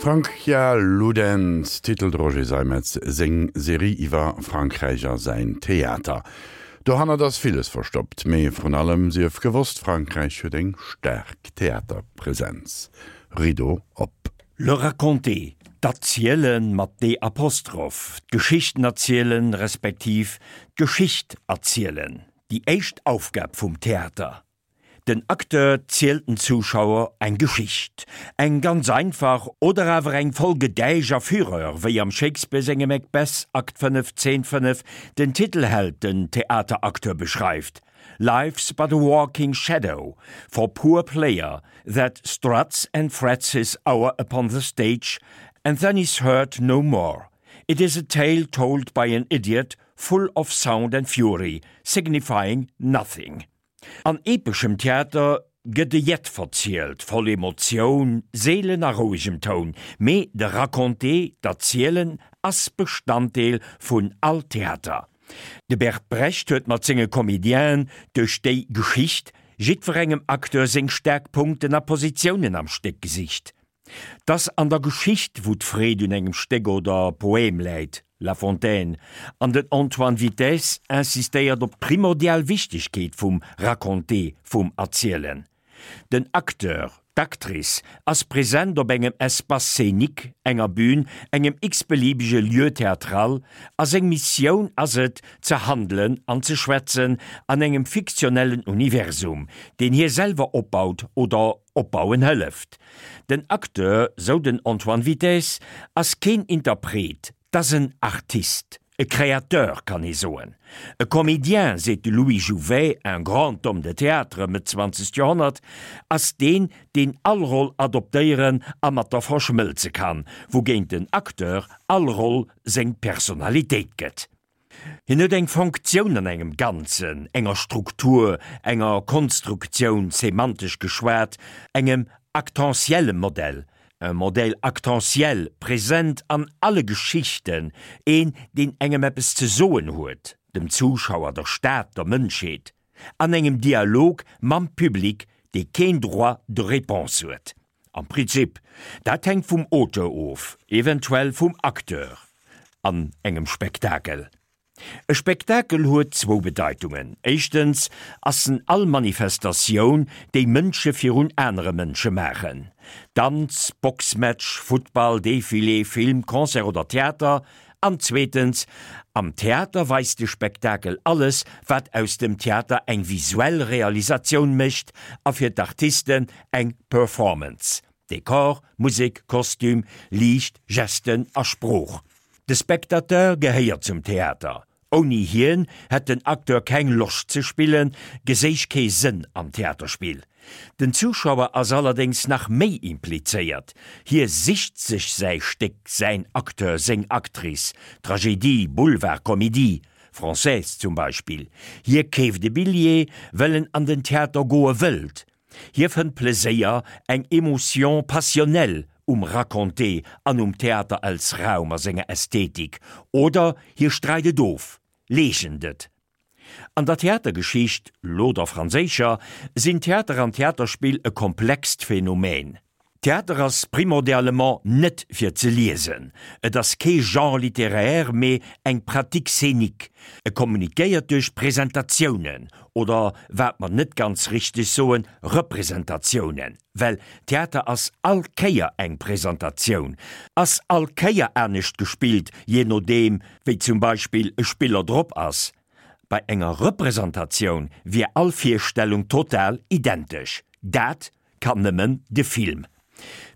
Francia Ludens titelt Roger Seimetz seng Serie iwwer Frankräich a säin Theater. Dohannert ass villes verstoppt, mee vrun allem sief gewosst, Frankräich huet eng staark Theaterpresenz. Rideau op. Le raconter, d'Erzielen, mat d Apostroph, d'Geschichten erzielen, respektiv d'Geschicht erzielen, déi éischt Aufgab vum Theater. Den Acteur zielt den Zuschauer eng Geschicht, eng ganz einfach oder awer eng voll Gedäisch a Fureur, wéi am Shakespeare sengem Macbeth, Akt 5, Zeen 5, den Titelheld den Theateracteur beschreift, Life's but a walking shadow for poor player that struts and frets his hour upon the stage and then is heard no more. It is a tale told by an idiot, full of sound and fury, signifying nothing. An epeschem Theater gëtt e Jett verzielt, voll Emotioun, seelen a rouegem Toun, mee de Raconter, d'Erzielen, ass Bestanddeel vun all Theater. De Bert Brecht huet mat senge Comédienen duerch déi Geschicht jiddwerengem Acteur seng staark Punkten a Positiounen am Stéck gesicht. 't ass an der Geschicht, wou d'Freed un engem Stéck oder Poème läit, La Fontaine, an den Antoine Vitez insistéiert op d'primordial Wichtegkeet vum Raconter, vum Erzielen. Den Acteur, d'Actrice ass present op engem Espace scénique, enger Bühn, engem x-beliebege Lieu théâtral, a seng Missioun ass et, ze handelen an ze schwätzen an engem fiktionellen Universum, deen hie selwer opbaut oder opbauen hëlleft. Den Acteur, sou den Antoine Vitez, ass keen Interpret, 't ass en Artist, e Créateur kann ee soen. E Comédien, seet de Louis Jouvet, un grand homme de théâtre, Mëtt zwanzegt Joerhonnert, ass deen, deen all Roll adoptéieren a mat der verschmëlze kann, wougéint den Acteur all Roll seng Personalitéit gëtt. Hien huet eng Fonctioun an engem Ganzen, enger Struktur, enger Konstruktioun, semantesch geschwat, engem actentielle Modell, un modèle actentiel, present an alle Geschichten, een, deen engem eppes ze soen huet, dem Zuschauer, der Stad, der Mënschheet, an engem Dialog mam Public, dee keen Droit de réponse huet. Am Prinzip. Dat hänkt vum Auteur of, eventuell vum Acteur an engem Spektakel. E Spektakel huet zwou Bedeitungen. Éischtens ass en all Manifestatioun, déi Mënsche virun anere Mënsche maachen, Danz, Boxmatch, Futtball, Defilé, Film, Concert oder Theater. An zweetens, am Theater weist de Spektakel alles, wat aus dem Theater eng visuell Realisatioun mécht a fir d'Artisten eng Performance, Dekor, Musek, Kostüm, Liicht, Gesten a Sprooch. De Spectateur gehéiert zum Theater. Ouni hien hätt den Acteur keng Loscht ze spillen, geséich kee Sënn am Theaterspill. Den Zuschauer ass allerdéngs nach méi implizéiert, hie sicht sech säi Stéck, säin Acteur, seng Actrice, Tragedie, Boulevard, Comédie française zum Beispill. Hie keeft e Billjee, well en an den Theater goe wëllt. Hie fënnt Pleséier, eng Émotion passionnelle um Raconter an um Theater als Raum a senger Ästhetik, oder hie streit et of, leegent et. An der Theatergeschicht, lo der franséischer, sinn Theater an Theaterspill e komplext Phänomen. Theater ass primordialement net fir ze liesen, et ass kee Genre littéraire, mee eng Pratique scénique. E kommunikéiert duerch Presentatiounen, oder wat mer net ganz richteg soen, Representatiounen, well Theater ass all Kéier eng Presentatioun, ass all Kéier anescht gespillt, jee nodeem wéi zum Beispill e Spiller drop ass. Bei enger Representatioun wier all Virstellung total identesch. Dat kann nëmmen de Film.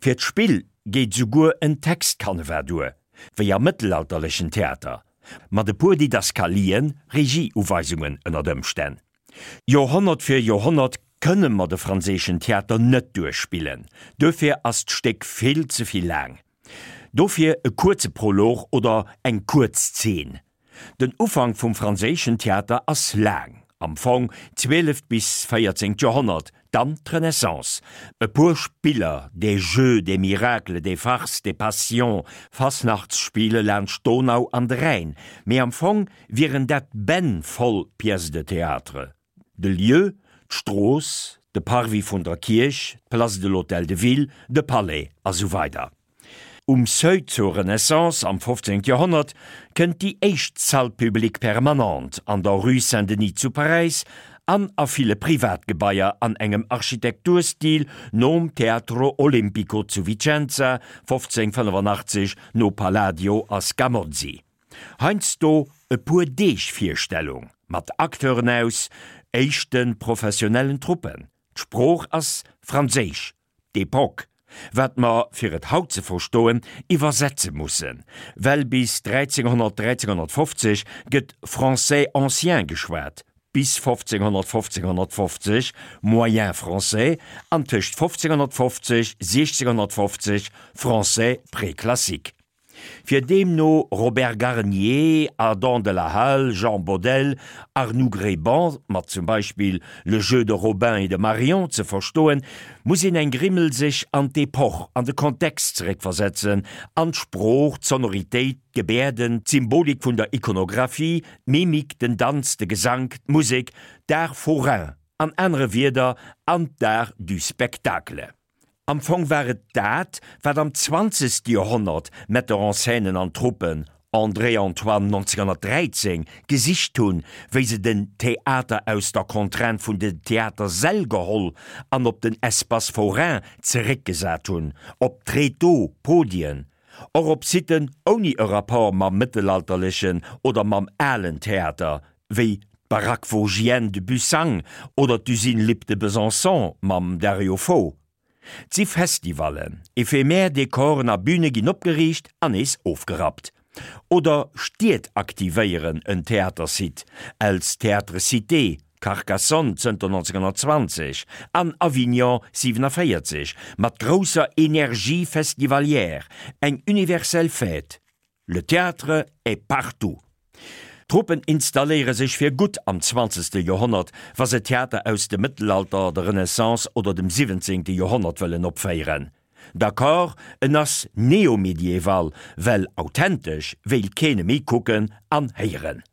Fir d'Spill geet souguer en Textcanevas duer, wéi am mëttelalterlechen Theater, mat e puer Didaskalien, Regieuweisungen ënnert Ëmstänn. Joerhonnert fir Joerhonnert kënne mer de franséischen Theater net duerchspillen, duerfir ass d'Stéck vill ze vill laang. Dofir e kuerze Prolog oder eng kuerz Zeen. Den Ufank vum franséischen Theater ass laang, am Fong zwieleft bis véierzéngt Joerhonnert, dann d'Renaissance, e puer Spiller, des Jeux, des Miracles, des Farces, des Passions, Fasnachtsspiele laanscht d'Donau an de Rhäin, mee am Fong wieren dat Bänn voll Pièces de théâtre. De Lieu, d'Strooss, de Parvis vun der Kierch, d'Place de l'Hôtel de Ville, de Palais a sou weider. Um Seuil zur Renaissance am 15. Joerhonnert kënnt déi éischt Salle publique permanente an der Rue Saint-Denis zu Paräis an a ville Privatgebaier an engem Architekturstil nom Teatro Olimpico zu Vicenza, 1585 no Palladio a Scamozzi. Heiansdo e puer Deeg Virstellung mat Acteuren aus éischte professionellen Truppen. D'Sprooch ass Franséisch d'Epoque, wat mer, fir et haut ze verstoen, iwwersetze mussen, well bis 1300, 1350 gëtt Français ancien geschwat, bis 1500, 1550 Moyen français an tëscht 1550, 1650 Français préclassique. Fir deemno Robert Garnier, Adam de la Halle, Jean Bodel, Arnoux Gréban mat zum Beispill Le jeu de Robin et de Marion ze verstoen, muss een eng Grimmel sech an d'Epoch, an de Kontext zeréckversetzen, an d'Sprooch, d'Sonoritéit, d'Gebäerden, d'Symbolik vun der Ikonographie, d'Mimik, den Danz, de Gesank, d'Musek, d'Art forain, an anere Wierder, an d'Art du spectacle. Am Fong war et dat, wat am zwanzegste Joerhonnert Metteur-en-scènen an Truppen, André Antoine 1913, gesicht hunn, wéi se den Theater aus der Contrainte vun den Theatersäll geholl an op den Espace forain zeréckgesat hunn, op Tréteaux, Podien, och op Siten ouni e Rapport mam mëttelalterlechen oder mam alen Theater, wéi d'Baraque Vosgienne de Bussang oder d'Usine Lipp de Besançon mam Dario Fo. 't si Festivallen, ephemer Dekoren a Büne ginn opgeriicht an nees ofgerappt. Oder Stied aktivéieren en Theatersite, els Théâtre Cité, Carcassonne zënter 1920 an Avignon 47, mat grousser Energie festivalière, eng universell Fête. Le théâtre est partout! D'Truppen installéiere sech fir gutt am zwanzegste Joerhonnert, wa se Theater aus dem Mëttelalter, der Renaissance oder dem siwwenzéngte Joerhonnert wëllen opféieren. D'accord, en ass neomedieval, well authentesch wéilt keen e méi kucken an héieren.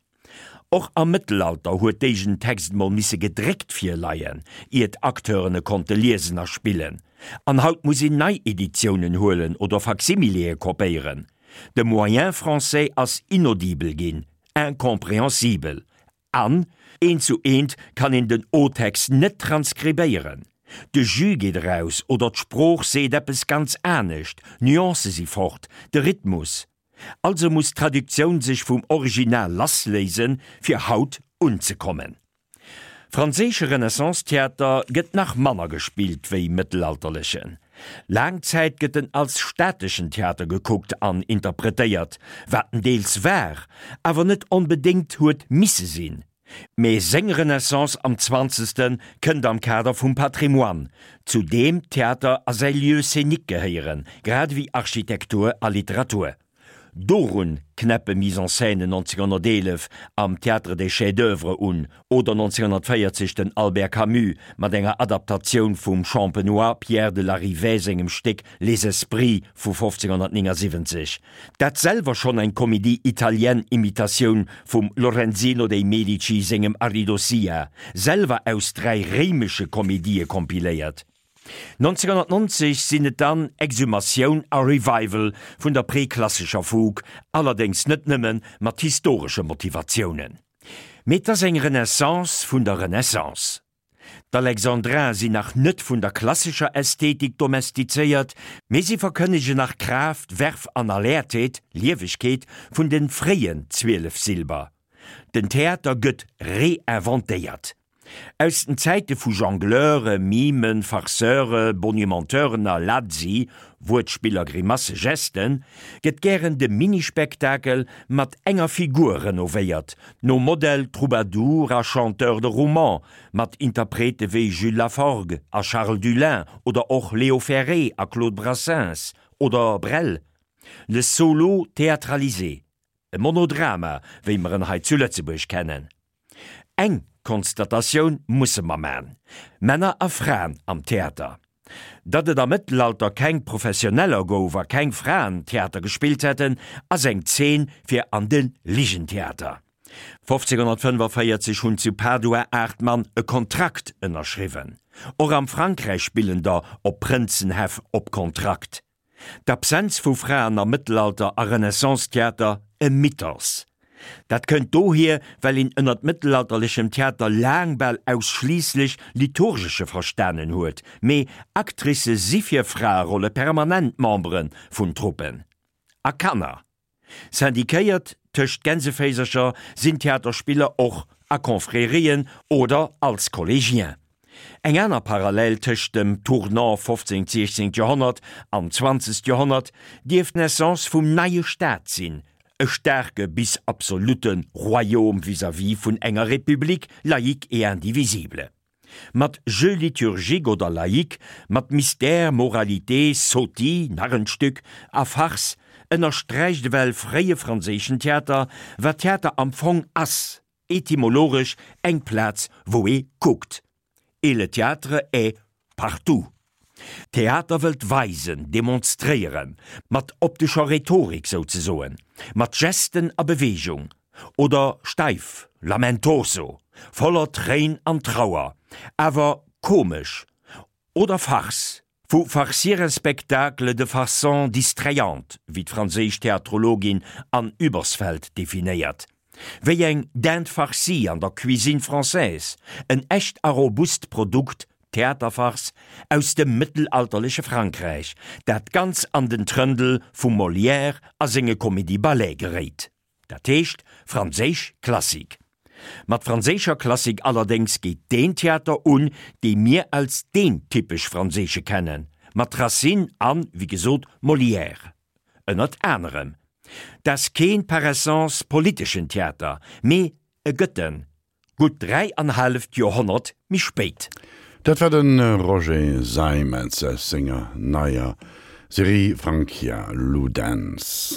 Och am Mëttelalter huet dégen Text mol misse gedréckt virleien, ier d'Acteuren e konnte liesen a spillen. An haut muss een nei Editiounen huelen oder Facsimileë kopéieren. De Moyen français ass inaudible ginn, incompréhensible. An, eent zu eent kann een den O-Text net transkribéieren. De Jus geet eraus oder d'Sprooch seet eppes ganz anescht, d'Nuancë si fort, de Rhythmus. Also muss d'Traduktioun sech vum Original lassléisen, fir haut unzekommen. Franséische Renaissance-Theater gëtt nach manner gespillt wéi mëttelalterlechen. Laang Zäit gëtt en als stateschen Theater gekuckt an interpretéiert, wat en deels war, awer net onbedéngt huet misse sinn. Mee seng Renaissance am Zwanzegste kënnt am Kader vum Patrimoine, zu deem Theater a säi Lieu scénique gehéieren, grad ewéi Architektur a Literatur. Dorun knäppe Mise-en-scènen 1911 am Théâtre des Chefs-d'oeuvre un, oder 1940 den Albert Camus mat enger Adaptatioun vum Champenois Pierre de Larivey sengem Stéck Les Esprits vu 1579. Dat selwer schonn eng Comédie italienne-Imitatioun vum Lorenzino dei Medici sengem Aridossia, selwer aus 3 réimesche Komedië kompiléiert. 1990 sinn et dann Exhumatioun a Revival vun der preklassescher Fugue, allerdéngs net nëmme mat historesche Motivatiounen. Mee 't ass eng Renaissance vun der Renaissance. D'Alexandrins sinn nach net vun der klassescher Ästhetik domestizéiert, mee si verkënnegen nach Kraaft, Verve an Alertheet, Liewegkeet, vun de fréien Zwielefsilber. Den Theater gëtt reinventéiert. Aus den Zäite vu Jongleure, Mimen, Farceure, Bonimenteuren a Lazzi, Wuertspiller, Grimasse, Gesten, gëtt gären de Minispektakel mat enger Figur renovéiert, nom Modell Troubadour a Chanteur de roman, mat Interprete wéi Jules Laforgue a Charles Dullin oder och Léo Ferré a Claude Brassens oder Brel. Le solo théâtralisé, e Monodrama, wéi mer en hei zu Lëtzebuerg kennen. Eng Konstatatioun musse mer man, Männer a Fraen am Theater. Datt et am Mëttelalter keng Professioneller gouf a keng Fraen Theater gespillt hätten, ass eng Zeen fir an de Ligentheater. 1545 hunn zu Padua 8 Mann e Kontrakt ënnerschriwwen. Och am Frankräich spillen der op Prënzenhäff op Kontrakt. D'Absenz vu Fraen am Mëttelalter a Renaissance-Theater, e Mythos. Dat kënnt dohier, well een ënnert mëttelalterlechem Theater laang bal ausschliisslech liturgesche verstanen huet, mee Actricë si fir Fraerolle permanent Membere vun Truppen. A Kanner. Syndiquéiert tëscht Gänseféisercher sinn Theaterspiller och a Confrérien oder als Collégien. Eng aner Parallel tëscht dem Tournant 15. 16. Joerhonnert an 20. Joerhonnert dierft d'Naissance vum neie Staat sinn, e staarke bis absolutte Royaume vis-à-vis vun enger République laïque et indivisible. Mat Jeu liturgique oder laïque, mat Mystère, Moralité, Sotie, Narrenstück a Farce ënnersträicht ewell fréie franséischen Theater, wat Theater am Fong ass, etymologesch eng Plaz wou ee kuckt. Et le théâtre est partout. Theater wëllt weisen, demonstréieren, mat optescher Rhetorik souzesoen, mat Gesten a Beweegung, oder steif, lamentoso, voller Tréin an Trauer, awer komesch, oder Farce, vu farcir un spectacle de façon distrayante, wéi d'franséisch Theatrologin Anne Ubersfeld definéiert. Wéi eng Dinde farcie an der Cuisine française, en echt a robust Produkt, Theaterfarce, aus dem mëttelalterleche Frankräich, dat ganz an den Trëndel vum Molière a senge Comédie-Ballete geréit. Dat heescht franséisch Klassik. Mat franséischer Klassik allerdéngs geet deen Theater un, dee mir als deen typesch franséische kennen, mat Racine an, wéi gesot, Molière. Ënnert anerem. 't ass keen par essence politeschen Theater, mee e gëtt en, gutt 3 an halleft Joerhonnert méi spéit. Dat war de Roger Seimetz aus senger neier Serie Francia Ludens.